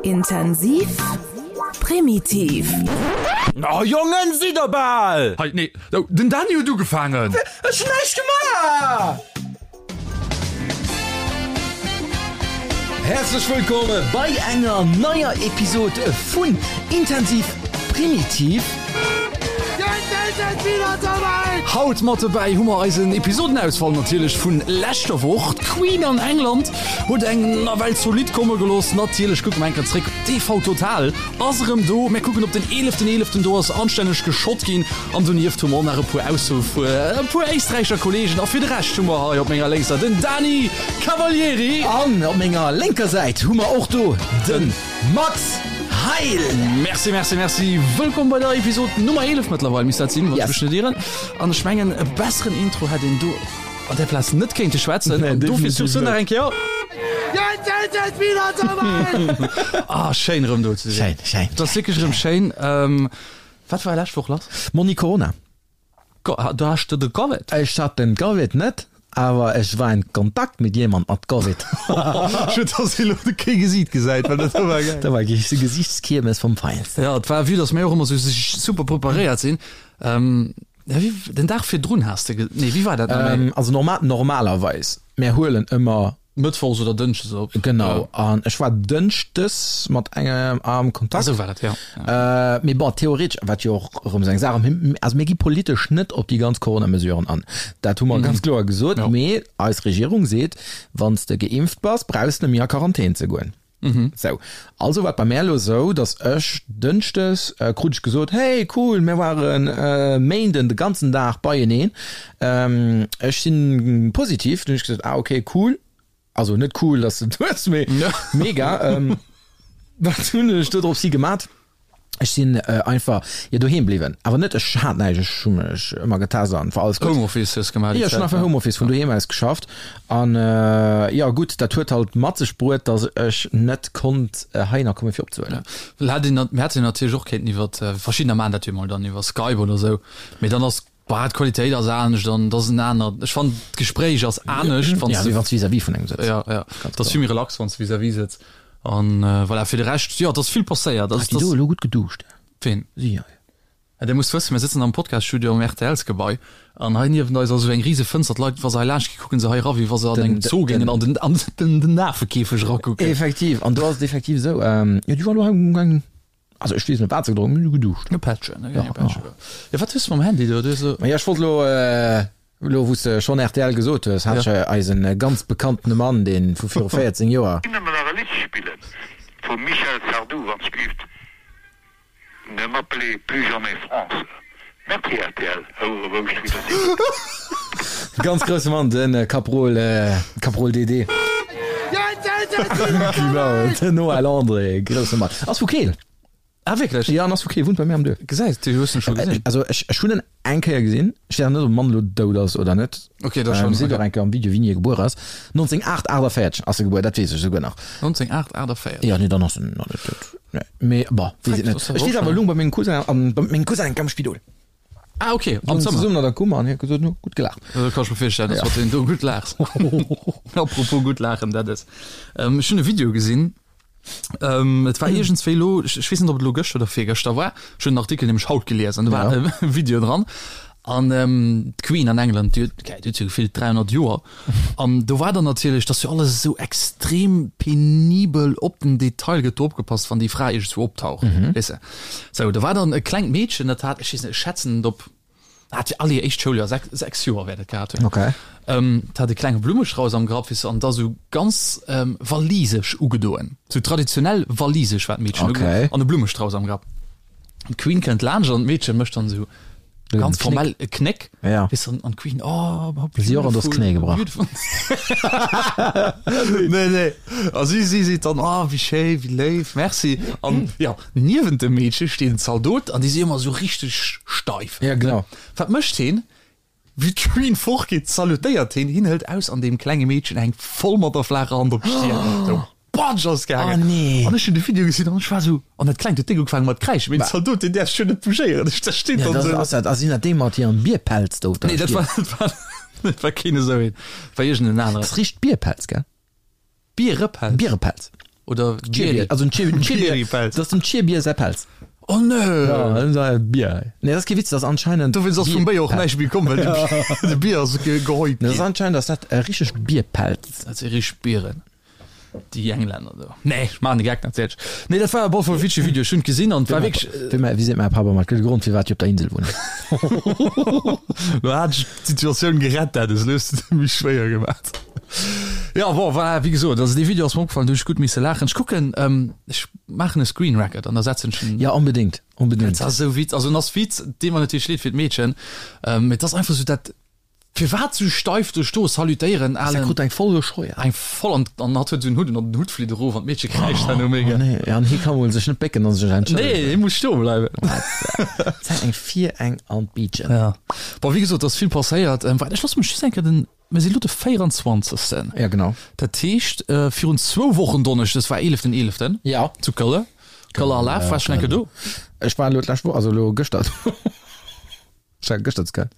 Intensiv, primitiv. Oh Jongen, sidd der bal! Hei, nee, den Dany huet ugefaangen! Ech hunn näischt gemaach! Häerzlech wëllkomm bei enger neier Episod vun Intensiv Primitiv. Haut mat dobäi hu mer eisen Episodenausfall natierlech vun leschter Woch. D'Queen an England huet eng nawell zolidd komme gelooss. Natierlech kucke mer eng Kéier zréck. TV Total ass erëm do. Mir kucken op den eeleften eeleften, do ass anstänneg geschott ginn. An donieft hu mer och nach e puer Aussoe vu e puer éisträicher Kollegen. A fir de Rescht hu mer hei op menger lénkser den Dani Cavalieri. An op menger lénker Säit hu mer och do de Max Heil. Merci, merci, merci. Wëllkomm bei der Episod Nummer 11 mëttlerweil misst dat sinn, wann ech mech net ieren. An ech mengen, e besseren Intro hätt een do an där Plaz net kéinte schwätzen. An dofir sur ce nach eng Kéier. Ah, schéin erëm do ze sinn. Schéin, schéin. Et ass wierklech erëm schéin. Wat war lescht Woch lass? Monni Corona. Du has de de Covid? Ech hat den Covid net, awer ech war in Kontakt mit jemand mat Covid. Schued dass ee lo kee Gesiit gesäit, well dat war geil. Dat war Gesichtskiermes vom Feinsten. Jo, et war, vue dass mir och ëmmer sou super preparéiert sinn. Wéi, den Dag virdrun has de, nee wéi war dat nach méi? Also normal, normalerweis, mär huelen ëmmer. Mëttwochs oder Dënschdes op. Genau, an ech war Dënschdes mat engem am Kontakt. Esou war dat, jo. Mee bon, theoretesch, wat jo och erëm esou eng Saach ass, also mir gi politesch net op déi ganz Corona-Mesuren an. Dat hu mer ganz kloer gesot. Mee eis Regierung seet, wann s de geimpft bass, brauchs de net méi a Quarantän ze goen. Sou, also war et bei mär elo esou, datt ech Dënschdes krut ech gesot, hey cool, mir ware Méinden de ganzen Dag beieneen, ech si positiv. Dunn hunn ech gesot, ah ok cool, also net cool, datt s de et hues, mee mega. Wat hunn ech do dropshi gemat? Ech sinn einfach jo doheem bliwwen, awer net ech hat näischt, ech hu mech ëmmer getest an war alles gutt. Homeoffice hues gemaach déi Zäit? Jo, ech hunn einfach Homeoffice vun doheem aus geschafft an jo gutt, dat huet halt mat sech bruet, datt ech net konnt heihinner komme fir opzehuelen. Well hätt een, mir hätten natierlech och kéinten iwwer, verschiddener maachen dat jo mol dann iwwer Skype oder sou, mee dann ass, bah, d'Qualitéit ass anescht an et ass en anert, ech fannen d'Gespréich ass anescht wann s de. Ja, wéi wann s vis-à-vis vun engem sëtz. Jo, jo, et ass vill méi relax wann s de vis-à-vis sëtz. An voilà, fir de Rescht, jo, et ass vill passéiert. Hat déi do elo gutt geduscht? Ween? Si hei. Ja, Dir musst wëssen, mir sëtzen am Podcast-Studio am RTLs-Gebai an hei niewent eis ass esou eng rise Fënster. D'Leit, wa se hei laanscht ginn, kucke se hei era wéi wa se an engem Zoo géingen an den, an den, den Afekäfeg erakucken. Effektiv, an do ass et effektiv esou, jo, déi war elo hei um Gang, also ech weess net wat se gedronk hunn, mee geduscht. E Pättchen, e Pättchen. Jo, wat hues de mam Handy do? Du hues elo. Ma jo, ech wollt elo. Elo wou s de schonn rtl gesot hues, hat ech eisen ganz bekanntene Mann, dee vu viru 14 Joer. Nëmmen nach e Lidd spillen vum Michel Sardou, wann s gelift, Ne m'appelez plus jamais France. Merci rtl, Houere Wouscht wéi der sidd. Ganz grousse Mann, de Kaprol, Kaprol DD. Genau, den Noël André, grousse Mann. Ass vu Keel. Ah wierklech? Jo, en ass vu Keel, wunnt bei mir am Duerf. Gesäis du, hues en scho gesinn? Also ech, ech hunn en eng Kéier gesinn. Ech weess net, ob de Mann elo dout ass oder net. Ok, da schonn. Seet och eng Kéier am Video, wéini e gebuer ass. 1948 ass e gebuer, dat weess ech esouguer nach. 1948? Jo, nee, dann ass en nach net dout. Nee, mee bon, weess et net. Ech weess awer, elo bei mengem Cousin an, bei mengem Cousin am Spidol. Ah ok, am Zëmmer. Zesummen an der Kummer an hie huet gesot, no, gutt gelaacht. Dat kann ech mer virstellen, dass mat deem do gutt laachs. Apropos gutt laachen, dat ass, ech hunn e Video gesinn, Ähm, et war iergendswéi elo, ech, ech weess net, ob et elo gëschter oder virgëschter war, ech hunn den Artikel nämlech haut gelies an do war e Video dran. An ähm, d'Queen an England, déi huet, okay, déi huet jo gefillt 300 Joer. An do war dann natierlech, dass jo alles esou extrem penibel op den Detail gëtt do opgepasst, wann déi Fra iergendswou optaucht, weess de. Sou, do war dann e klengt Meedchen, dat hat, ech weess net, ech schätzen et op Hat fir all hir éischt Schouljoer, sechs, sechs Joer wäert et gehat hunn. Okay. Ähm, hat e klenge Blummestrauss am Grapp, weess du, an da sou ganz ähm, walisesch ugedoen. Sou traditionell walisesch war d'Meedchen okay. ugedoen an e Blummestrauss am Grapp. D'Queen kënnt laanscht an d'Meedche mécht dann sou ganz formell e Knéck. Ja. Weess du, an, an d'Queen, oh, Si och an das Knéi gebrach. Beautiful. Nee, nee. A si, si seet dann, oh, wéi schéi, wéi léif, merci. An ja, Niewent dem Meedche steet en Zaldot an déi si ëmmer esou richteg steif. Ja, genau. Wat mécht heen? Wéi d'Queen fortgeet, salutéiert heen, hien hëlt aus an deem klenge Meedchen hänkt voll mat der flaacher Hand op d'Stier. Esou, Batsch ass gaangen. Oh nee. An ech hunn de Video gesinn an ech war esou, an dat Klengt huet déck ugefaangen mat kräischen, mee den Zaldot, deen däerf sech jo net bougéieren. Ech, dat steet Ja, dann dat esou. ass dat, ass sinn dat déi mat hirem Bierpelz do op der Nee, dat Stier? war, dat war, dat war keen esou een, war iergend en aneren. Dat ass richteg Bierpelz, gell? Bierepelz? Bierepelz. Oder Bier, also den Chierbier, dat ass dem Chierbier säi Pelz. Oh nee! Ja, Bier. Nee, dat ass kee Witz, dat ass anscheinend. Dowéinst ass vum Béier och näischt méi komm, well de Bier ass gehäut ginn. Dat ass anscheinend ass dat e richteg Bierpelz. Dat si richteg Bieren, déi Englänner do. Nee, ech maachen de Geck natierlech. Nee, dat war op alle Fall e witzege Video, ech hunn et gesinn an et war wierklech. Wéi mäi, wéi seet mäi Papp ëmmer, et gëtt e Grond firwat déi op der Insel wunnen. Lo hat ech d'Situatioun gerett, dat ass elo hues de et méi schwéier gemaach. Jo, bon, voilà, wéi gesot, also dee Video ass mer opgefallen, do hunn ech gutt misse laachen. Ech kucken, ech maachen e Screen Record an da setzen ech en. Jo, onbedéngt, onbedéngt. Dat ass esou witz, also en ass Witz, deet mer natierlech leed fir d'Meedchen, mee et ass einfach esou dat, firwat esou steif do stoe, salutéieren, alen. Se krut eng voll gescheuert. Eng voll an, an hatt huet esou en Hutt un an den Hutt flitt erof an d'Meedche kräischt herno mega. Oh nee, ja, an hie ka mol sech net bécken an sech entschëllegen. Nee, hie muss stoe bleiwen. Wat eng fir eng an d'Biitchen. Ja, bon, wéi gesot, et ass vill passéiert. Waart, ech loosse mech just eng Kéier den. Mir si lo de 24. Ja, genau. Dat heescht, virun zwou Wochen Donneschdes war eeleften eeleften. Ja. Zu Këlle. Këller Alaf. Waars schonn eng Kéier do? Ech war elo d'lescht Woch, also elo gëschter do. Ech war gëschter zu Köln.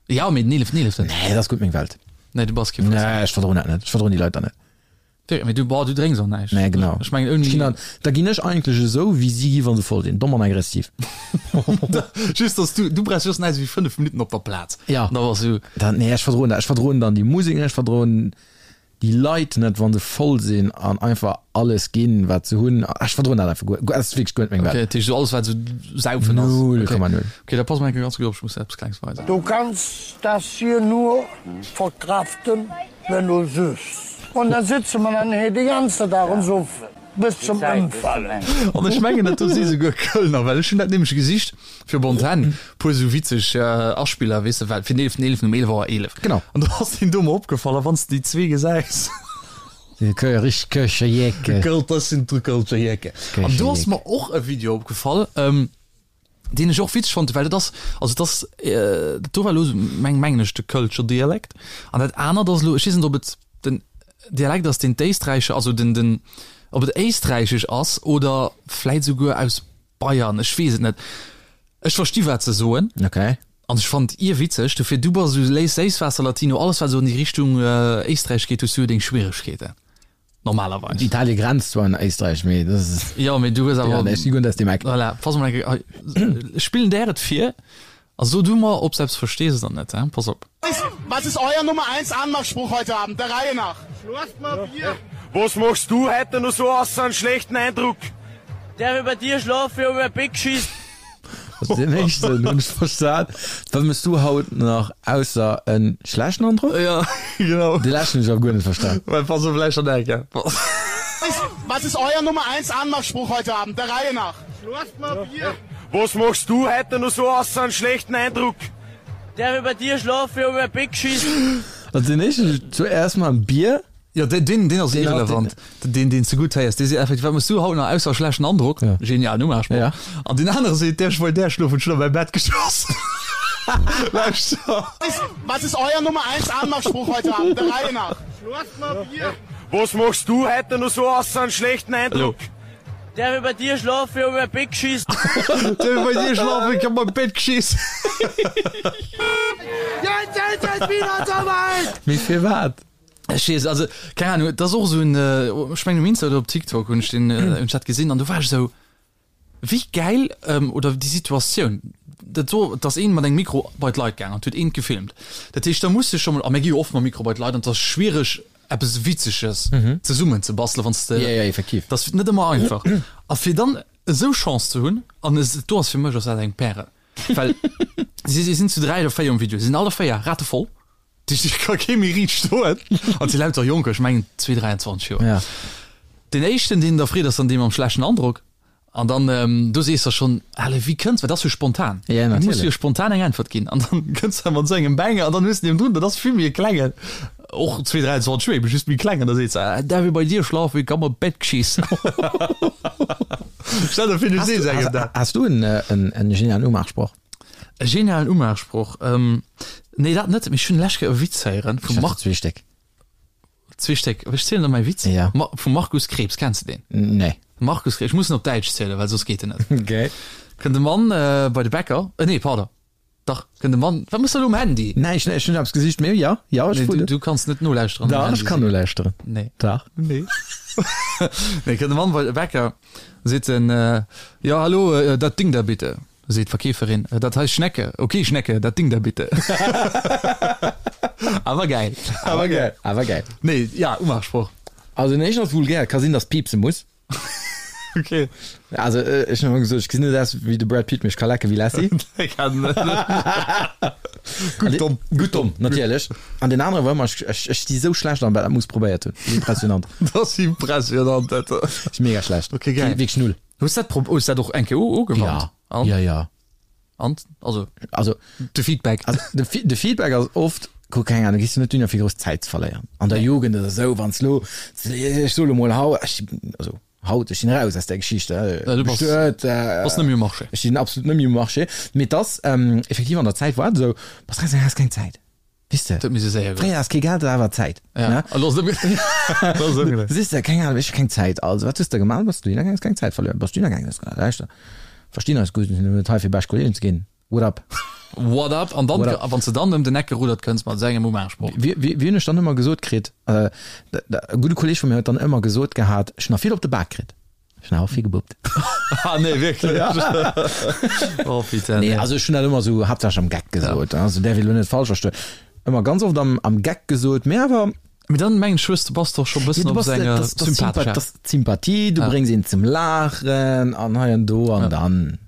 Ja, mee den eeleften eeleften. Nee, dat ass gutt meng Welt. Nee, du bass kee Frëss. Nee, ech verdroen dat net. Ech verdroen déi Leit dann net. Wéi, mee du, boah, du drénks och näischt. Nee, genau. Ech mengen ouni. Ech ginn dann, da ginn ech eigentlech esou, wéi si gi wa se voll sinn, domm an aggressiv. Just, dass du, du brauchs just näischt wéi 5 Minutten op der Plaz. Ja. An da bass du. Dann, nee, ech verdroen dat. Ech verdroen dann déi Musek net, ech verdroen déi Leit net, wa se voll sinn an einfach alles ginn, wat se hunn. Ech verdroen dat einfach guer, dat ass wierklech guer net meng Welt. Okay, dat heescht esou alles, wat esou Saufen ass. 0,0. Okay, da pass mol eng Kéier ganz gutt op, ech muss der eppes Klengs weisen. Du kannst das hier nur verkraften, Wenn du süffs. Und dann sitze mer dann hei de ganze Dag und suffen bis zum Ëmfallen. An ech mengen dat do si souguer Kölner, well ech hunn dat nämlech gesicht fir op Antenn, puer esou witzeg Aspiller, weess de, well fir den eeleften eeleften um 11 Auer 11. Genau. An do ass deen do mer opgefall, a wann s de déi zwee gesäis. Déi richteg Kölscher Jecken. Dat sinn d'Kölscher Jecken. An do ass mer och e Video opgefall. Deen ech och witzeg fonnt, well dat ass, also et ass, dat do war elo meng, mengen ech, de Kölscher Dialekt an dat anert ass elo, ech weess net, ob et den Dialekt ass, deen d'Éisträicher, also den, den, ob et éisträichesch ass oder vläit souguer aus Bayern, ech weess et net. Ech versti wat se soen. Okay. An ech fannt irwitzeg, dofir du bass esou léis Séisswaasser-Latino, alles wat esou an déi Richtung Éisträich geet, hues du jo deng Schwieregkeeten. Normalerweis. Italie grenzt zwar un Éisträich, mee dat ass. Jo, mee du hues awer. Ja, nee, ech si guer net aus deem Eck. Voilà, pass mol eng Kéier, ech spillen där et vir a so du mer, ob s eppes verstees oder net, hein? Pass op. Was ist euer Nummer eins Anmachspruch heute Abend, der Reihe nach? Was machst du heute noch so ausser einen schlechten Eindruck? Darf ich bei dir schlafen? Ich hab mir Bett geschissen. Also den éischten hunn ech verstan. Wat mëss du haut nach ausser en schlechten Androck? Ja, genau. De leschten hunn ech awer guer net verstan. Well pass op, lauschter nach eng Kéier. Was ist euer Nummer eins Anmachspruch heute Abend, der Reihe nach? Was machst du heute noch so ausser einen schlechten Eindruck? Darf ich bei dir schlafen? Ich hab mir Bett geschissen. Also den éischten, zuerst mal en Bier. Jo, deen, deen, deen ass irrelevant. Deen, deen s de gutt héiers, dee seet effektiv, Wat méchs du haut nach ausser schlechten Androck? Ja. Genialen Umachspruch. Ja. An deen anere seet, Däerf ech bei där schlofen? Ech hunn a mäi Bett geschoss. Lauschter. Was ist euer Nummer eins Anmachspruch heute Abend, der Reihe nach? Was machst du heute noch so ausser einen schlechten Eindruck? Däerf ich bei dir schlafen? Ich hab mir Bett geschiss. Däerf ich bei dir schlafen? Ich hab mir Bett geschiss. Jetzt ist es wieder soweit! Mee firwat? Ech weess, also keng Ahnung, et ass och esou en, ech mengen um Insta oder op TikTok hunn ech deen, hunn ech dat gesinn an du war ech esou, wéi gäil, oder déi Situatioun, dat do, et ass een mat engem Mikro bei d'Leit gaang an et huet een gefilmt. Dat heescht, da muss de scho mol, a mir gi jo oft mam Mikro bei d'Leit an et ass schwiereg eppes Witzeges zesummen ze bastelen, wann s de, Ja, ja, effektiv. dat ass net ëmmer einfach. A fir dann esou Chance ze hunn, an es, do ass fir mech ass dat eng Pärel, well si si sinn zu 3 oder 4 um Video, si sinn alle 4 ratevoll, Déi ka kee méi riicht stoen. An si lauter Jonker, ech mengen 2, 23 Joer. Ja. Den éischten, deen da freet, ass dann dee mam schlechten Androck. An dann, do sees der schonn, Ale, wéi kënns, well dat ass jo spontan. Ja, Du muss natierlech. jo spontan eng Äntwert ginn. An dann kënns de mat esou engem Banger an dann hues de deen drun, dat ass vill méi e klengen, och 2, 23 Joer, ebe just méi kleng. An da seet se, Darf ich bei dir schlafen, ich hab mir Bett geschiss. Stell der vir, du sees engem dat. Has du en, en, en genialen Umachsproch? E genialen Umachsproch? Nee, dat net, mee ech hunn lech Kéier e Witz héieren vum Marc. Zwee Stéck. Zwee Stéck. Ech zielen der mäi Witz. Ja. Ma vum Markus Krebs, kenns de deen? Nee. Markus Krebs, ech muss en op Däitsch zielen, well soss geet en net. Okay. Kënnt e Mann bei de Bäcker, nee, pardon, dach, kënnt e Mann, wat mëss de elo um Handy? Näischt, ech hunn eppes gesicht, mee jo, jo, ech Nee, du, du kanns net nolauschteren. Dach, ech kann nolauschteren. Nee. Dach. Nee. Nee, kënnt e Mann bei de Bäcker, seet en, Jo, hallo, dat Ding da bitte. Seet d'Verkeeferin, Dat heißt Schnecke. Ok, Schnecke, dat Ding da bitte. Awer gäil. Awer gäil. Awer gäil. Nee, ja, Umachsproch. Also den éischten ass vulgär, ka sinn, dass piepse muss. Ok. Also ech hunn ëmmer gesot, ech gesinn net aus wéi de Brad Pitt, mee ech ka lecke wéi Lassie. Gutt domm. Gutt domm, natierlech. An deen anere war ëmmer, ech, ech, ech si sou schlecht an dat muss probéiert hunn. Impressionant. Dat ass impressionant, dat. Ass mega schlecht. Ok, gäil. Wierklech null. Hues dat prob hues dat och eng Kéier ugewannt? Ja. An? Ja, ja. An? Also, also de Feedback. Also, de, de Feedback ass oft, kuck, keng Ahnung, gehst du net dunner fir grouss Zäit ze verléieren. An der Jugend oder sou, wann s lo, ech soe lo mol hau, ech, also haut, ech sinn raus aus där Geschicht, ja, du bass, bestuet, äh, bass net méi um Marché. Ech sinn absolut net méi um Marché. Mee et ass, ähm, effektiv an der Zäit war et esou, bass raus, has keng Zäit. Weess de? Dat misst séier goen. Fréier has kee Geld, awer Zäit. Ja. Ne? An ass ëmgedréit. Siehst de, keng Ahnung, ech hu keng Zäit. Also, wat hues de gemaach? Bass du hingaangen, has keng Zäit verluer. Bass du hingaangen, hues gesot, lauschter, verstinn eis gutt, mir sinn net hei fir bescht Kollegen ze ginn. What up? What up? An dann, What up? wann s de dann ëm den Eck gerudert kënns mat esou engem Umachsproch. Wie, wie, wie hunn ech dann ëmmer gesot kritt? Äh, e gudde Kolleg vu mir huet dann ëmmer gesot gehat, ech hunn nach vill op de Bak kritt. Ech hun awer vill gebuppt. Ah nee, wierklech? Oh putain. Nee, also ech hun dat ëmmer sou haaptsächlech am Geck gesot, also däerf ee lo net falsch verstoen. Ëmmer ganz oft am, am Geck gesot, mee awer. Mee dann mengen ech hues de, bass de och scho bëssen op sou enger sympathescher. Dat ass d'Sympathie, du bréngs een zum Laachen an hei an do an dann.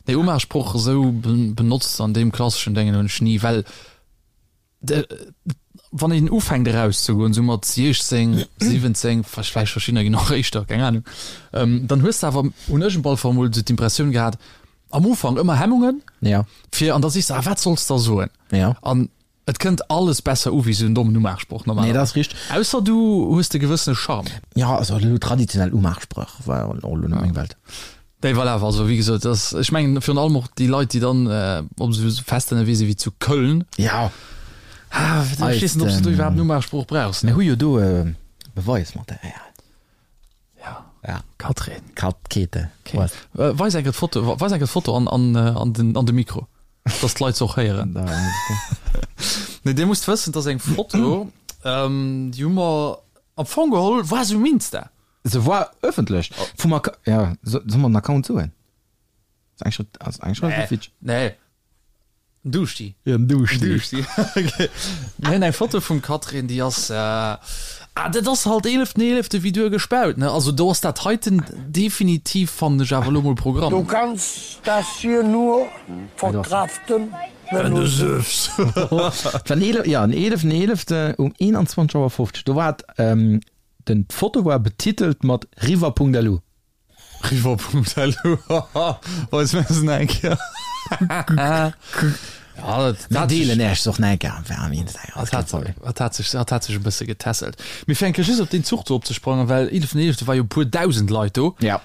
Nee, Umachsproch esou benotzt an deem klasseschen Déngen hunn ech ni, well. Wann een ufänkt erauszegoen, sou mat 16, 17, vläicht verschiddener ginn och éischter, keng Ahnung, dann hues de awer, hunn ech op alle Fall emol sou d'Impressioun gehat, am Ufank ëmmer Hemmungen, fir, an da sees de, ah wat solls de da soen? An et kënnt alles besser u wéi sou en dommen Umaachsproch normalerweis. Nee, dat ass richteg. Ausser du hues de gewëssene Charme. Jo, also elo traditionell Umaachspréch war och elo net meng Welt. Nee, voilà, also wéi gesot, dass, ech mengen virun allem och déi Leit, déi dann op esou Fester ënnerwee sinn wéi zu Köln. Ja. Ah, ech weess net, ob s de do iwwerhaapt en Umachsproch brauchs. Mir hu jo do e Beweismaterial. Ja. Ja. Katrin. Kat, Käthe. Okay. Weis eng Kéier d'Foto, weis eng Kéier d'Foto an, an, an den, an de Mikro, dass d'Leit se och héieren. Nee, Dir musst wëssen, dass eng Foto, déi hu mer am Fong geholl, war se um Insta. Se war ëffentlech vum Acc ja, soll mer den Account soen? Ass eng Schrëtt, ass eng Schrëtt nee. Fitsch. Nee. Duschti. Ja, Duschti. Duschti. Okay. Mir hunn eng Foto vum Catherine, déi ass, äh, ah, dat ass halt 11.11. wéi duer gespaut, ne? Also do ass dat heiten definitiv, fannen ech awer elo mol Programm. Du kannst das hier nur verkraften, wenn du süffst. Et war den 11, ja, den 11.11. um 21 Auer 50. Do war et, ähm, Den d'Foto war betitelt mat river.lu. River.lu, haha, weis mir se nach eng Kéier. Ja, dat Mir hat sech, deelen Äech se och nach eng Kéier am Instagram, dat hat, dat hat sech, dat hat sech e bësse getässelt. Mee fir eng Kéier just op deen Zuch do opzesprangen, well 11.11 war jo e puer dausend Leit do. Ja.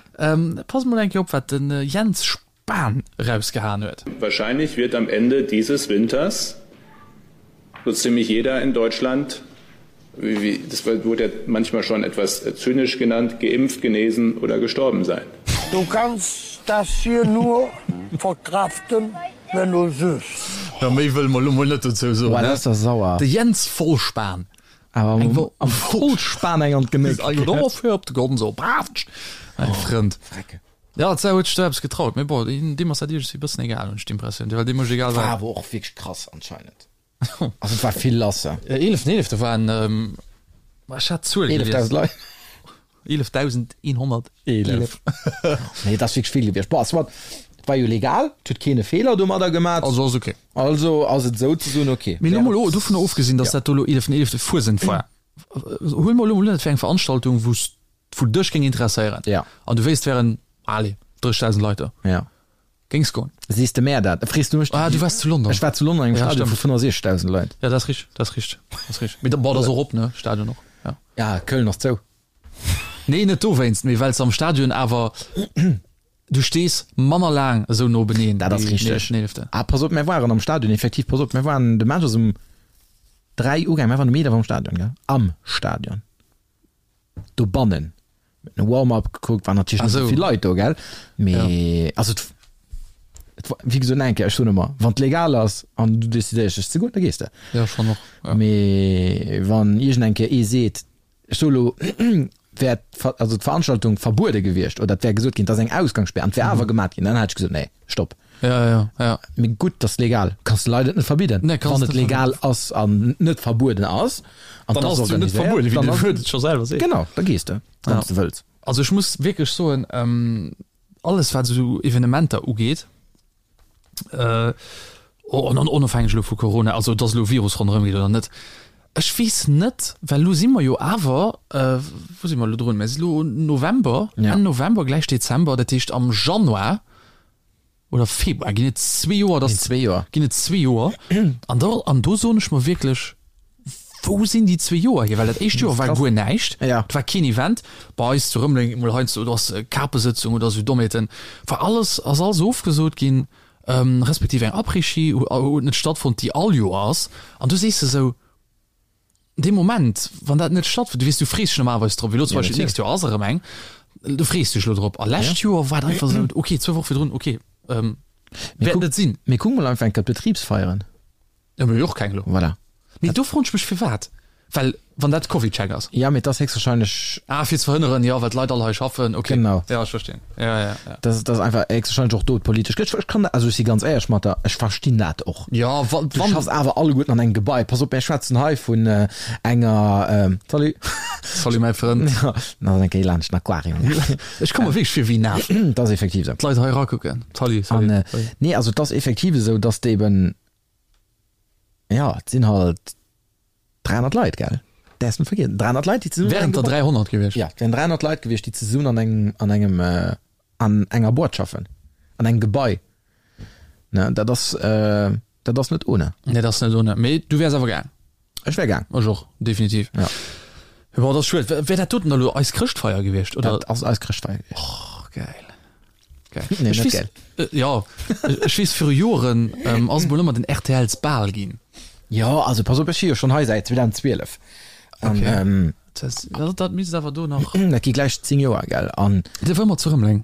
Pass mol eng Kéier op, wat den Jens Spahn erausgehaen huet. Wahrscheinlich wird am Ende dieses Winters so ziemlich jeder in Deutschland, wie, das wurde ja manchmal schon etwas zynisch genannt, geimpft, genesen oder gestorben sein. Du kannst das hier nur verkraften, wenn du süffst. Jo, méi wëlle mer elo mol net dozou soen, Boah, ne? dat ass der sauer. De Jens Vollspahn. Awer Eng Wo am Vollspan eng an d'Genéck. Op de Gonzo, brav! Mäi Frënd. Frecke. Ja, d'Sau huet sech do eppes getraut, mee bon, deem ass dat iergendwéi e bëssen egal, hunn ech d'Impressioun, well deem mécht egal War wat. awer och wierklech krass anscheinend. Also et war vill lass. Eeleften Eelefte waren, ech hat d'Zuel gelies. 11.000 Leit. 11.111. 11. Nee, et ass wierklech vill gewiescht. Bon, soit, et war jo legal, et huet keen e Feeler domadder gemat. Also ass ok. Also ass et souzesoen ok. Mee elo mol dovunner ofgesinn, datt dat do elo eeleften Eelefte Fuesent war, huel mol elo mol un, et wär eng Veranstaltung, wou s wou dech géing interesséieren ja. an du wéisst wären allez 30.000 Leit do ja. géings goen. Sees de mär dat? Frees du mech? Ah, du waars zu London. Ech war zu London engem ja, Stadion vu 65.000 Leit. Ja, dat ass richteg, dat ass richteg, dat ass richteg. Mee da, bon, dat ass och op, ne, Stadion och, ja. Ja, Köln ass zou. Nee, net dowéinst, mee well s am Stadion awer, du stees manner laang esou no beneen. Dat ass richteg. Ah, pass op, mär waren am Stadion, effektiv, pass op, mär waren, de Match ass um 3 ugaangen, mär waren um 11 am Stadion, gell, am Stadion. Dobannen huet en Warm-up gekuckt, waren natierlech net esou vill Leit do, gell, mee also et et war wéi gesot eng Kéier, ech soen ëmmer, wann et legal ass an du decidéiers dech ze goen, da gees de. Jo, schonn och, jo. Mee wann iergend eng Kéier ee seet, ech soe lo. Wär also d'Veranstaltung verbuede gewiescht oder et wär gesot ginn, et ass eng Ausgangssperr an et wär awer gemat ginn, dann hätt ech gesot, nee, stopp. Ja, ja, ja. Mee gutt, et ass legal, kanns de Leit et net verbidden. Nee, kanns Wann et net legal ass an net verbueden ass an Dann et ass ass et jo net organiséiert, verbueden, wéi dann de ass Wuert et scho selwer seet. Genau, da gees de, wann Ja. s de wëlls. Also ech muss wierklech soen, alles wat esou Evenementer ugeet, onofhängeg elo vu Corona, also dass elo Virus ronderëm geet oder net, ech weess net, well elo si mer jo awer, wou si mer elo drun, mer si elo November, Enn November, gläich Dezember, dat heescht am Januar oder Februar ginn et zwee Joer, dass, ginn et zwee Joer an da, an do soen ech mer wierklech, Wou sinn déi zwee Joer hier? Well dat éischt Joer war guer näischt, et war keen Event. Bei eis zu Rëmeleng emol heiansdo, do ass Kapesëtzung oder esou Dommheeten, war alles, ass alles ofgesot ginn, respektiv eng Après-Ski huet net stattfonnt, déi all Joer ass. An du sees de esou, dee Moment, wann dat net stattfënnt, du weess, du frees dech normalerweis drop, wéi elo zum Beispill d'nächst Joer ass erëm eng, du frees dech elo drop. A lescht Joer war et einfach esou, okay, zwou Woche virdrun, okay, wäert net sinn. Mee kuck mol einfach eng Kéier d'Betribsfeieren. Ja, mir hu jo och keng elo. Voilà. Mee do froen ech mech firwat, well wann dat CovidCheck ass. Ja, mee et ass héchstwahrscheinlech. Ah, fir ze verhënneren, jo, well d'Leit all hei schaffen, okay. Genau. Ja, ech verstinn. Ja, ja, ja. Dat ass einfach héchstwahrscheinlech och do d'politesch. Ech, ech kann dat, also ech si ganz éierlech mat der, ech verstinn dat och. Ja, wa, Du wann. schaffs awer alleguerten an engem Gebai. Pass op, mir schwätzen hei vun enger, salut. Salut, mäi Frënd. Ja, nach eng Kéier laanscht den Aquarium. Ech komme wierklech vir wéi en Af. Dat ass effektiv esou. D'Leit hei erakucken. Salut, salut. An, nee, also et ass effektiv esou, dass de eben, Ja, et sinn halt 300 Leit, gell? Däerfs net vergiessen, 300 Leit, déi zesummen an Wären engem der Gebai 300 gewiescht? Ja, et wären 300 Leit gewiescht, déi zesummen an engem, an engem, an enger Boîte schaffen, an engem Gebai. Ne, dat ass, dat ass net ohne. Nee, dat ass net ohne. Mee du wäers awer gaang? Ech wär gaang. Ech och, definitiv. Ja. Bon, dat ass schued. Wär dat doten da lo eis Chrëschtfeier gewiescht, oder? Dat ass eis Chrëschtfeier gewiescht. Och, geil. Geil. Nee, Ech net weess, geil. äh, ja, ech weess viru Joren ähm, ass mol ëmmer den RTLs Bal ginn. Jo, also pass op, ech si jo schonn hei säit 2012. An, Okay. ähm, Das, dat, dat misst awer do nach. dat gi gläich 10 Joer, gell? An De war ëmmer zu Rëmeleng.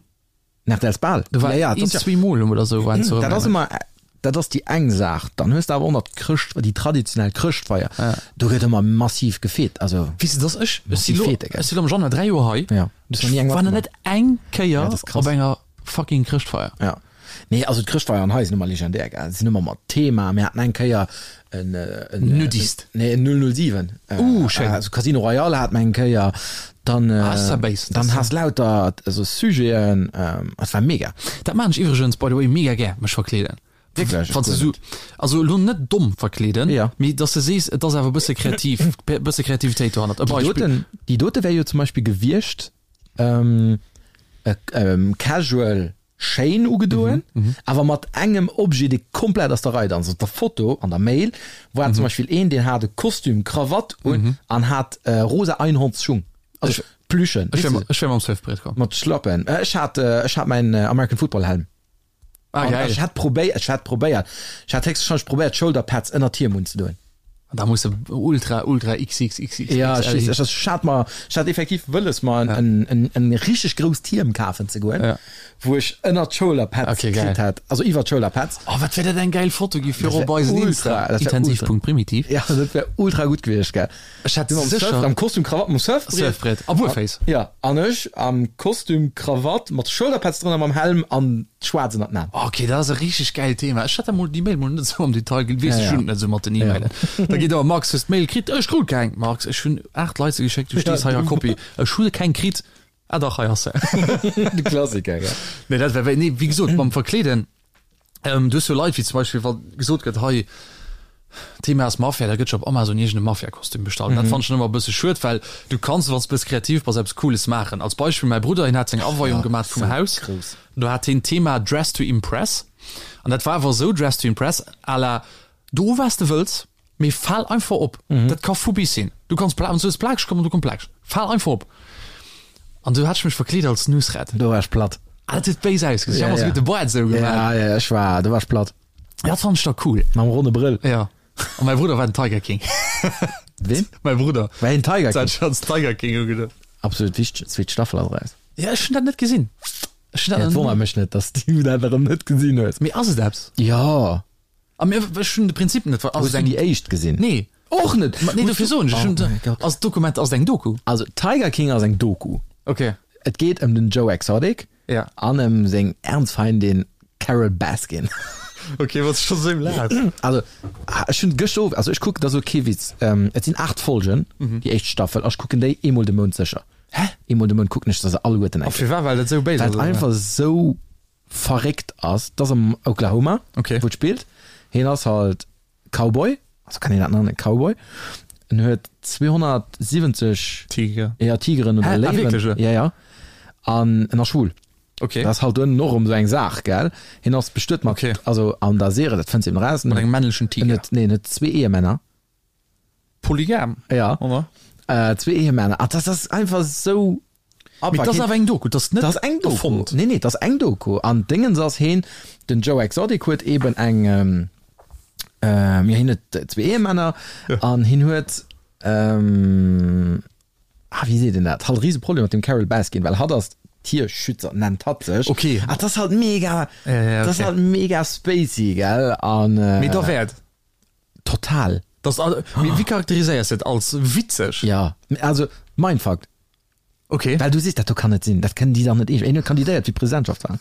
den RTLs Bal. Do war ja, ja, een, dat ass ja, zwee Mol oder sou war en zu dat ass Rëmeleng. ëmmer, dat ass déi eng Saach. Dann hues de awer och nach d'Chrëscht, déi traditionell Chrëschtfeier. Ja. Do gëtt ëmmer massiv gefeet. Also, Weess de, dass ech, ech si massiv lo, Fete, gell? ech si lo am Januar 3 Joer hei. Ja. Du hues nach ni eng Ech war nach matgemaach. net eng Kéier Ja, dat ass krass. op enger fucking Chrëschtfeier. Ja. Nee, also d'Chrëschtfeieren hei sinn ëmmer legendär, gell. Sinn ëmmer mat Thema. Mir haten eng Kéier en, en Nudist. Nee, en 007. Uh, schéin. Also Casino Royale hat mer eng Kéier. Dann, Ah, ass dat béis. dann has lauter esou Sujeten. Et war mega. Dat maan ech iwwregens by the way mega gär, mech verkleeden. Wierklech? Wann s de sou, also elo net domm verkleeden, Ja. mee dass de sees, et ass awer e bësse kreativ, bësse Kreativitéit dohannert. E Déi Beispill. doten, déi dote wär jo zum Beispill gewiescht, ähm, e, ähm, casual schéin ugedoen, awer mat engem Objet, dee komplett aus der Rei danzt. Op der Foto an der Mail war zum Beispill een, deen hat e Kostüm, Krawatt un an hat rosa Einhornsschung, also Plüschen, Ech wär, ech wär mam Surfbrett komm. mat Schlappen. Ech hat, ech hat mäin American Football Helm. Ah, An geil. ech hat probéiert, ech hat probéiert, ech hat héchstwahrscheinlech probéiert d'Shoulderpads ënnert d'Hiem unzedoen. Da muss de ultra ultra XXXXXL Ja, ech weess, ech, ech hat mer, ech hat effektiv wëlles mer en, en, en, en richteg grousst Hiem kafen ze goen, Ja. wou ech ënnert d'Shoulderpads Okay, geil. kritt hat, also iwwer d'Shoulderpads. Oh, wat wär dat eng geil Foto gi fir Dat wär op eisen ultra, Insta. dat wär ultra. Intensiv.primitiv. Ja, dat wär ultra gutt gewiescht, gell. Ech hätt Du mam Surf, sécher am Kostüm, Krawatt, mam Surfbriet. Surfbrett a Buerféiss. Ja, an ech am Kostüm, Krawatt, mat Shoulderpads drënner, mam Helm an schwaarz ënnert den Aen. Ok, dat ass e richteg gäilt Thema. Ech hat dat mol, déi Mail mol net esou am Detail gel, weess Ja, ech ja. hunn et net esou mat den Ja. E-Mailen. Da geet awer, Max, hues d'Mail kritt? Ech krut keng. Max, ech hunn 8 Leit se geschéckt, du stees hei a Kopie. Ech hu keng kritt. Ah dach, hei ass se. De Klassiker, gell. Nee, dat wär, nee, wéi gesot, mam Verkleeden, Ähm, du hues jo Leit, wéi zum Beispill, wa gesot gëtt, hei, Thema ass Mafia, da gëtt scho op Amazon iergend e Mafia-Kostüm bestallt. Dat fannen ech ëmmer e bësse schued, well du kanns, wann s de bësse kreativ bass, eppes Cooles maachen. Als Beispill, mäi Brudder, hien hat seng Aweiung gemaach vum Haus, do hat hien d'Thema Dress to Impress an dat war awer esou Dress to Impress à la, do wat s de wëlls, Mee fal einfach op. Dat ka vu bis sinn. Du kanns pla, wann s du hues plakeg komm an du komm plakeg. Fal einfach op. An du hat ech mech verkleet als Nusret. Do war ech platt. Ah, dat huet béis ausgesinn. Ja, Ech hu mer ja. souguer de Boart esou gemaach. Ja, ja, ech war, do war ech platt. Dat fand ech da cool. Mam ronne Brëll. Ja. An mäi Brudder war den Tiger King. Ween? Mäi Brudder. War hien Tiger King? King? Hat als Tiger King ugedoen. Absolut wichteg, zweet Staffel ass eraus. Ja, ech hunn dat net gesinn. Ech hunn dat Ja, et nach wonnert mech net, dass du dat erëm net gesinn hues. Mee ass et eppes? Jo. A mir, ech hunn de Prinzip net ver. Hues du déi éischt gesinn? Nee. Och net! Ma nee, dofir soen ech, ech hunn Oh mäi Gott. Ass d'Dokument, ass et eng Doku? Also Tiger King ass eng Doku. Okay. Et geet ëm den Joe Exotic Ja. an ëm seng Erzfeindin Carole Baskin. Okay, wat scho sou laat. Also ech hunn gëschter Owend, also ech kucken, dat ass elo kee Witz, et sinn 8 Folgen, déi éischt Staffel, a ech kucken déi eemol de Mount sécher. Hä? Eemol de Mount kucken ech se alleguerten A eng Kéier. firwat? Well dat sou béis Well ass, et oder? einfach sou verréckt ass. Et ass am Oklahoma, Okay. wou et spillt. Hien ass halt Cowboy, also kann een dat nennen, Cowboy. En huet 270 Tiger. Ja, Tigeren oder Hä? Ah, Léiwen. wierklech, oder? Ja, ja. An en ass schwul. Okay. Dat ass halt duerno och erëm esou eng Saach, gell? Hien ass bestuet mat, Okay. also an der Serie, dat fënns de eben eraus. Mat engem männlechen Tiger. En huet, nee, en huet zwee Ehemänner. Polygam, Ja. oder? Äh, zwee Ehemänner. Ah, das ass einfach sou Mee dat ass awer eng Doku, dat ass net Dat ass eng Doku. erfonnt. Nee, nee, dat ass eng Doku. An Dingens ass heen, den Joe Exotic huet eben eng, ähm, ähm, ja, hien huet zwee Ehemänner an hien huet, ähm, ah, wéi seet een dat, halt e rise Problem mat dem Carole Baskin, well hatt ass Tierschützer, nennt hatt sech. Okay. Ah, dat ass halt mega, Ja, ja, dat ass okay. halt mega spacey, gell? An, äh, Mee derwäert. Total. Das, mee wéi charakteriséiers de et? Als witzeg? Ja, also Mindfuck. Okay. Well du sees, dat do kann net sinn, dat kënnen déi dach net eescht. Een huet kandidéiert fir d'Presidentschaftswahlen.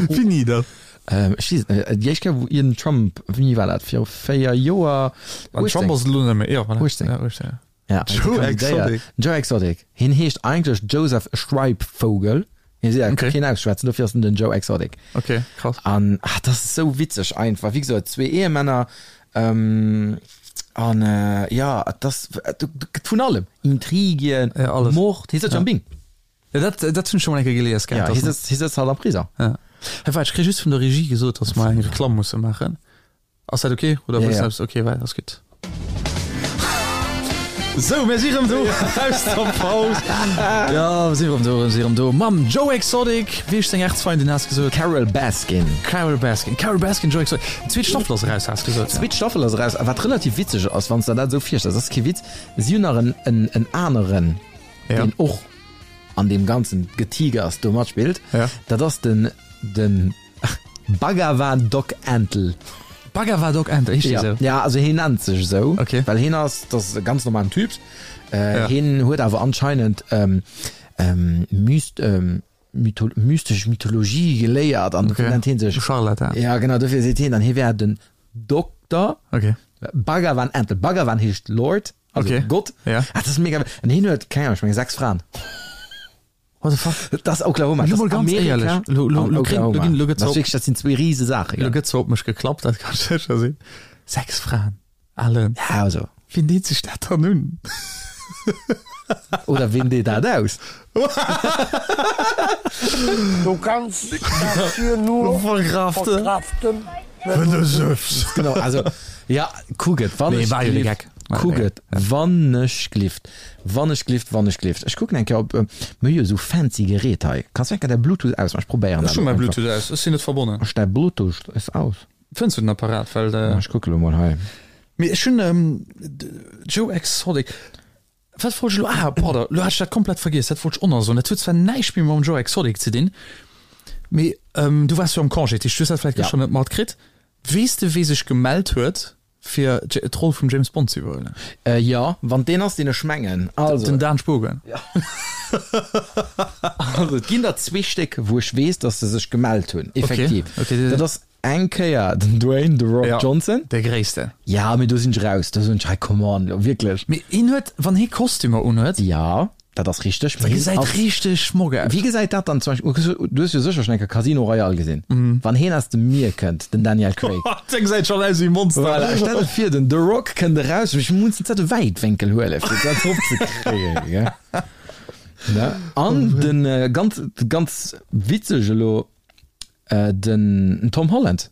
Wéini dat? Ähm, ech weess et net. Déi éischt Kéier, wou iergend Trump, wéini war dat, viru 4 Joer? An Trump ass et elo net méi. Jo, voilà. 18. Ja, 18, ja. Ja, Joe kandidéiert. Exotic. Joe Exotic. Hien heescht eigentlech Joseph Schreibvogel. Hie seet, Okay. keen ausschwätzen, dofir ass en den Joe Exotic. Okay, krass. An ah, dat ass esou witzeg einfach. Wéi gesot, zwee Ehemänner ähm, an äh, ja, dat ass du, du, gëtt vun allem. Intrigien, Ja, alles. Mord. Hie sëtzt Ja. jo am Bing. Ja, dat, dat hunn ech scho mol eng Kéier gelies Ja, gehat. hie dass- sëtzt, hie sëtzt halt am Prisong. Ja. Hey, waart, ech kréie just vun der Regie gesot, dass mer eng Reklamm musse maachen. Ass dat ok? Oder Ja, wëlls ja. du eppes? Ok, well, ass gutt. Sou, mir si rëm do aus der Paus. Ja, mir si rëm do, mir si rëm do mam Joe Exotic. Wéi heescht seng Erzfeindin, has gesot? Carole Baskin. Carole Baskin. Carole Baskin, Joe Exotic. D'zweet Staffel ass eraus, has gesot. D'zweet Staffel ass eraus. A wat relativ witzeg ass, wann s de der dat esou virstells, dat ass kee Witz, si hunn nach en, en, en aneren, Ja. deen och an deem ganzen Getigers do matspillt. Ja. Dat ass den, den Bhagavan Doc Antle. Bhagavan Doc Antle, heescht dee Ja, sou? ja, also hien nennt sech esou, Okay. well hien ass, dat ass e ganz normalen Typ. Äh, Ja. Hien huet awer anscheinend ähm, ähm, myst, ähm, mytho mystesch Mythologie geléiert an dofir Okay. nennt hien sech. Scharlatan. Ja, genau, dofir seet hien dann, hie wär den Dokter Okay. Bhagavan Antle. Bhagavan heescht Lord, also Okay. Gott. Ja. Ah, dat ass mega. An hien huet, keng Ahnung, ech menge 6 Fraen. What the fuck? Dat ass Oklahoma. Lo Dat mol ass ganz Amerika éierlech, lo- lo- an lo kréien- lo Oklahoma. ginn- lo gëtt Dat ass zwar- wierklech, dat sinn zwee rise Saache, Lo gell? gëtt zwar op mech geklappt, dat kann sécher sinn. 6 Fraen, Alan. Ja, also. Wien deet sech dat dann un? Oder wien deet dat aus? Du kannst das hier nur Verkraften. verkraften, wenn du süffs. Genau, also, ja, kuck et, wann Nee, ech war jo de glift, Gag. War kuck de et, wann ech glift, wann ech glift, wann ech glift. Ech kucken eng Kéier op, mir hu jo esou fancy Gerät hei. Kanns du eng Kéier däi Bluetooth ausmaachen? Ech probéieren Ech dat hu elo mäi einfach. Bluetooth aus, ech sinn net verbonnen. Ech däi Bluetooth ass aus. Fënns du den Apparat? Well, Ja, ech kucke lo mol hei. Mee ech hunn Joe Exotic. Wat wollt ech elo? Ah, pardon, elo hat ech dat komplett vergiess. Dat wollt ech och nach soen. Dat huet zwar näischt méi mam Joe Exotic ze dinn, mee du waars jo am Congé, dat heescht, du hues dat vläicht Ja. gëschter net matkritt. Weess de, wee sech gemellt huet, fir d'Roll vum James Bond ze iwwerhuelen? Äh, jo, wann deen ass, deen ech mengen. Also. Den Dan Spogen. Ja. Also, et ginn der zwee Stéck, wou ech weess, datt se sech gemellt hunn, effektiv. Okay, okay. Dat ass eng Kéier den Dwayne The Rock Ja, Johnson. De Gréisste. Ja, mee do sinn ech raus. Do soen ech, hey, come on, lo, wierklech. Mee hien huet, wann hie Kostümer unhuet. Ja, dat ass richteg. Dat gesäit richteg schmock aus. Wéi gesäit dat dann zum Beispill, du hues jo sécher schonn eng Kéier Casino Royale gesinn. Wann hien aus dem Mier kënnt, den Daniel Craig. Dee gesäit schonn aus wéi e Monster. Voilà, stell der vir, den The Rock kënnt eraus, ech muss den zette Wäitwénkel huelen, fir dat drop ze kréien, gell. Ne? An den ganz, ganz witzeg elo, den Tom Holland.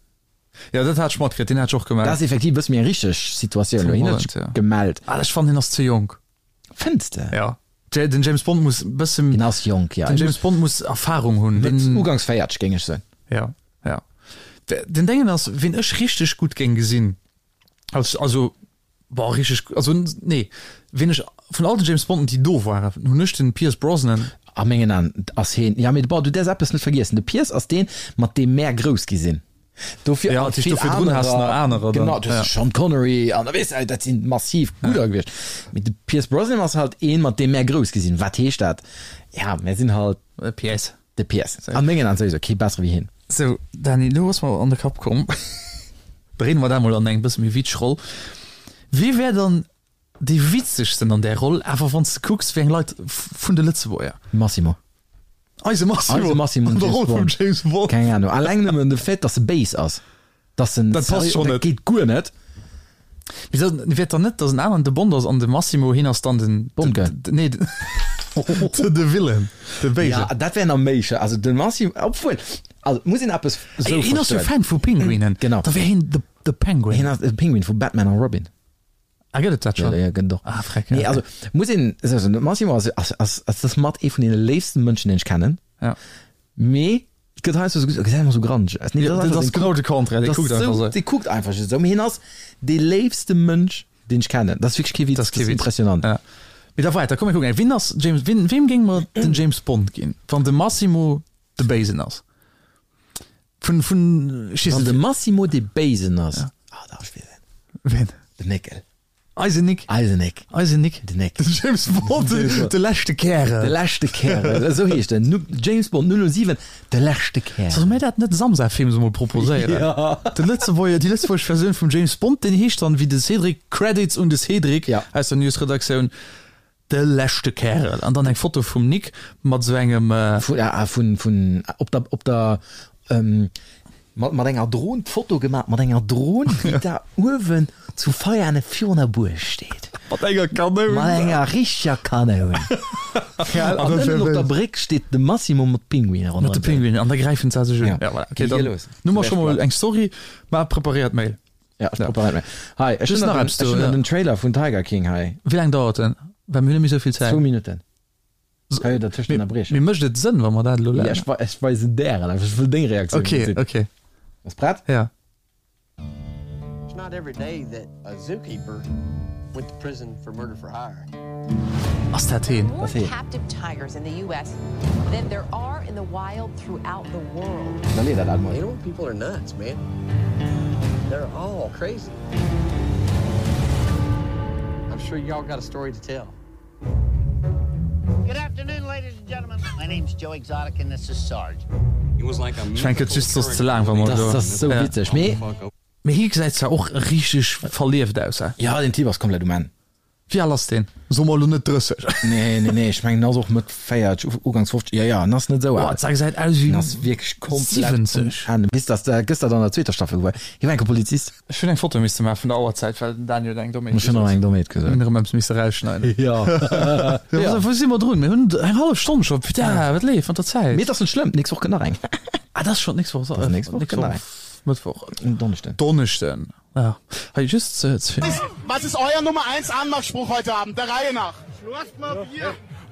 Ja, dat hat ech matkritt, deen hat sech och gemellt. Dat ass effektiv e bësse méi eng richteg Situatioun elo. Tom Hien huet Holland, sech ja. gemellt. Ah, ech fannen, hien ass ze jonk. Fënns de? Ja. Den James Bond muss e bësse. Hien ass jonk, ja. Den James Bond muss Erfahrung hunn. Den ugangs 40, géing ech soen. Ja, ja. Den Déngen ass, ween ech richteg gutt géing gesinn, als, also, boah, richteg, also, nee, ween ech vun all den James Bonden, déi do waren, hunn ech den Pierce Brosnan. A mengen Aen ass hien, ja, mee bon, du däerfs eppes net vergiessen, de Pierce ass deen, mat deem mär grouss gi sinn. Dofir Ja, vill dofir drun has nach anerer dann. Genau, du hast Sean Connery an da weess de, dat sinn massiv gudder gewiescht. Mee de Pierce Brosnan ass halt een, mat deem mär grouss gi sinn. Wat heescht dat? Ja, mär sinn halt. De Pierce. De Pierce. An mengen Aen souwisou kee bessere wéi hien. Sou, Dany, elo ass mer an de Kapp komm, dréine mer dat mol an eng bësse méi witzeg Roll. Wie wär dann dee witzegsten an där Roll, awer wann s de kucks, wéi eng Leit vun de Lëtzebuerger? Massimo. Eise Massimo, Eise Massimo an der Roll vum James Bond. Keng Ahnung. Alleng nëmmen de Fait, dass e béis ass. Dass en Dat passt schonn net. Dat geet guer net. Mee da wäert dann net, dass en aneren de Bond ass an de Massimo, hien ass dann den. Bond Girl. Nee, de, de Villain, de Béisen. Ja, dat wär nach méi sche. Also de Massimo, obwuel, also muss een eppes esou Hien ass jo verstoen. Fan vu Pinguinen. Genau. Da wär hien de, de Penguin. Hien ass de Penguin vu Batman a Robin. Ah, gëtt et dat schon? Ja, ja, gëtt et och. Ah, freck. Nee, also muss een esou soen, de Massimo ass, ass, ass, ass das mat ee vun deene léifsten Mënschen, deen ech kennen. Ja. Mee et gëtt heiansdo esou, gesäit ëmmer esou granteg aus. Nee, Ja, dat ass genau de Contraire, dee kuckt einfach esou. Dee kuckt einfach just esou. Mee hien ass dee léifste Mënsch, deen ech kennen. Dat ass wierklech kee Witz, Dat ass kee Witz. impressionant. Ja. Mee da weiter, komm mir kucken. Wien ass James, wien, weem géing mer den James Bond ginn, wann de Massimo de Béisen ass? Vun, vun, ech weess Wann net. de Massimo dee Béisen ass, Ja. ah, da ech weess en. Wien? Den Néckel. Eisen Nick. Eisen Nick. Eisen Nick. Den Nick. Den James Bond, Den James Bond. de leschte Kärel. De leschte Kärel, esou heescht en. Nu, James Bond 007, de leschte Kärel. Solle mir dat net Samsa Films emol proposéieren? Ja. De Lëtzebuerger, déi lëtzebuergesch Versioun vum James Bond, deen heescht dann, wéi de Cédric, Credits un de Cédric Ja. aus der Newsredaktioun, De leschte Kärel. An dann eng Foto vum Nick mat sou engem. Vun, ah, vun, vun, op der, op der, ähm, mat, mat enger Dron, d'Foto gemaach mat enger Dron, déi da uewen zu Veiane virun der Buerg steet. Mat enger Kanoun. Mat enger richteger Kanoun. Gell? An ënnen op der Bréck steet de Massimo mat Pinguinen ronderëm. Mat de Pinguinen, an da gräifen se sech un. Ja. Ja, voilà. Okay, Geet dann los. hu mer scho mol eng Story. Maach preparéiert Mail. Ja, ech preparéiert Mail. Hei, ech Just hunn nach nach den, eppes do, ech hunn ja. nach den Trailer vun Tiger King hei. Wéi laang dauert en? Well mir hunn net méi sou vill Zäit. Zwou Minutten. Kann jo dertëscht ënnerbriechen. Mee mécht et Sënn, wa mer dat elo Ja, laang. ech, ech weisen där en einfach. Ech wëll deng Reaktioun Okay, gesinn. okay. Bass prett? Ja. It's not every day that a zookeeper went to prison for murder for hire. Ass dat heen? Dat ass heen. Captive tigers in the US than there are in the wild throughout the world. Da leet dat mol. Animal people are nuts, man. They're all crazy. I'm sure y'all got a story to tell. Good afternoon, ladies and gentlemen. My name's Joe Exotic and this is Sarge. Ech mengen, et gëtt just soss ze laang, wa mer Dat do. ass sou Ja. witzeg. Mee. Mee hie gesäit zwar och richteg verlieft aus, he? Ja, den Typ ass komplett um Enn. Wéi al ass deen? Soe mer elo net 30. Nee, nee, nee, ech mengen, en ass och Mëtt 40, Uganks 50. Jo, jo, en ass net esou al. Boah, dat gesäit aus wéi En ass wierklech komplett um 70. Enn. Bis dass de gëschter an der zweeter Staffel gewuer. Hie war enke Polizist. Ech hunn eng Foto misse maache vun der Auerzäit, well den Daniel huet eng Dommheet Ech hunn och gesot. eng Dommheet gesot. Mir hunn erëm eppes misse rausschneiden. Jo. Jo, wou si mer drun? Mir hunn eng hallef Stonn scho. Putain, wat leeft mat der Zäit? Mee et ass net schlëmm, d'nächst Woch kënnt nach eng. Ah, dat ass schonn d'nächst Woch. Dat ass d'nächst Woch, kënnt nach eng. Mëttwoch. Donneschden. Donneschden. Ja. Hei just ze ze. Was ist euer Nummer 1 Anmachspruch heute Abend, der Reihe nach?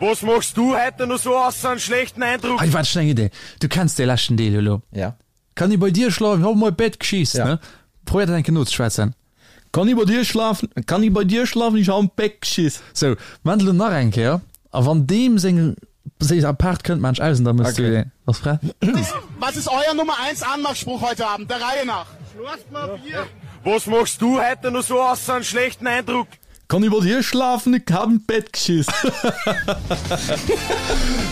Was machst du heute noch so außer einen schlechten Eindruck? Hei waart, ech hunn eng Idee. Du kenns dee leschten Deel jo elo. Ja. Kann ich bei dir schlafen? Ich hab mei Bett geschiss, Ja. ne? Probéier dat eng Kéier nozeschwätzen. Kann ich bei dir schlafen? Kann ich bei dir schlafen? Ich hab am Bett geschiss. Sou, maan elo nach eng Kéier. A wann deem seng seng Apart kënnt, maan ech aus an da mëss du Okay. deen. Bass prett? Was ist euer Nummer 1 Anmachspruch heute Abend, der Reihe nach? Was machst du heute noch so außer einen schlechten Eindruck? Kann ich bei dir schlafen? Ich hab im Bett geschiss.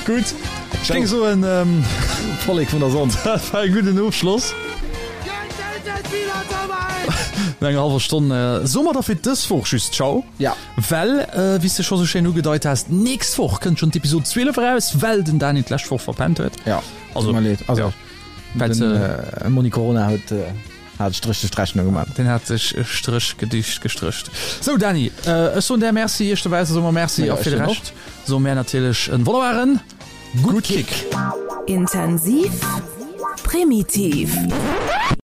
Gutt, ech géing soen, ähm, Vollek vun der Sonn. dat war e gudden Ofschloss. No enger hallwer Stonn soe mer da fir dës Woch just Ciao. Ja. Well, wéi s de scho sou schéin ugedeit has, d'nächst Woch kënnt schonn d'Episod 12 eraus, well den Dani d'lescht Woch verpennt huet. Ja, Also, tut mer leed. Also, ja. Well den se. Monni Corona huet hat Stréch duerch d'Rechnung gemaach. Deen hat sech e Stréch gedicht gestrécht. Sou Dani, ech soen där Merci, iech dobausse soe mer Merci Ja, a ech fir de soen och. Rescht soe mär natierlech en wonnerbaren Gutt Kick! Intensiv, primitiv.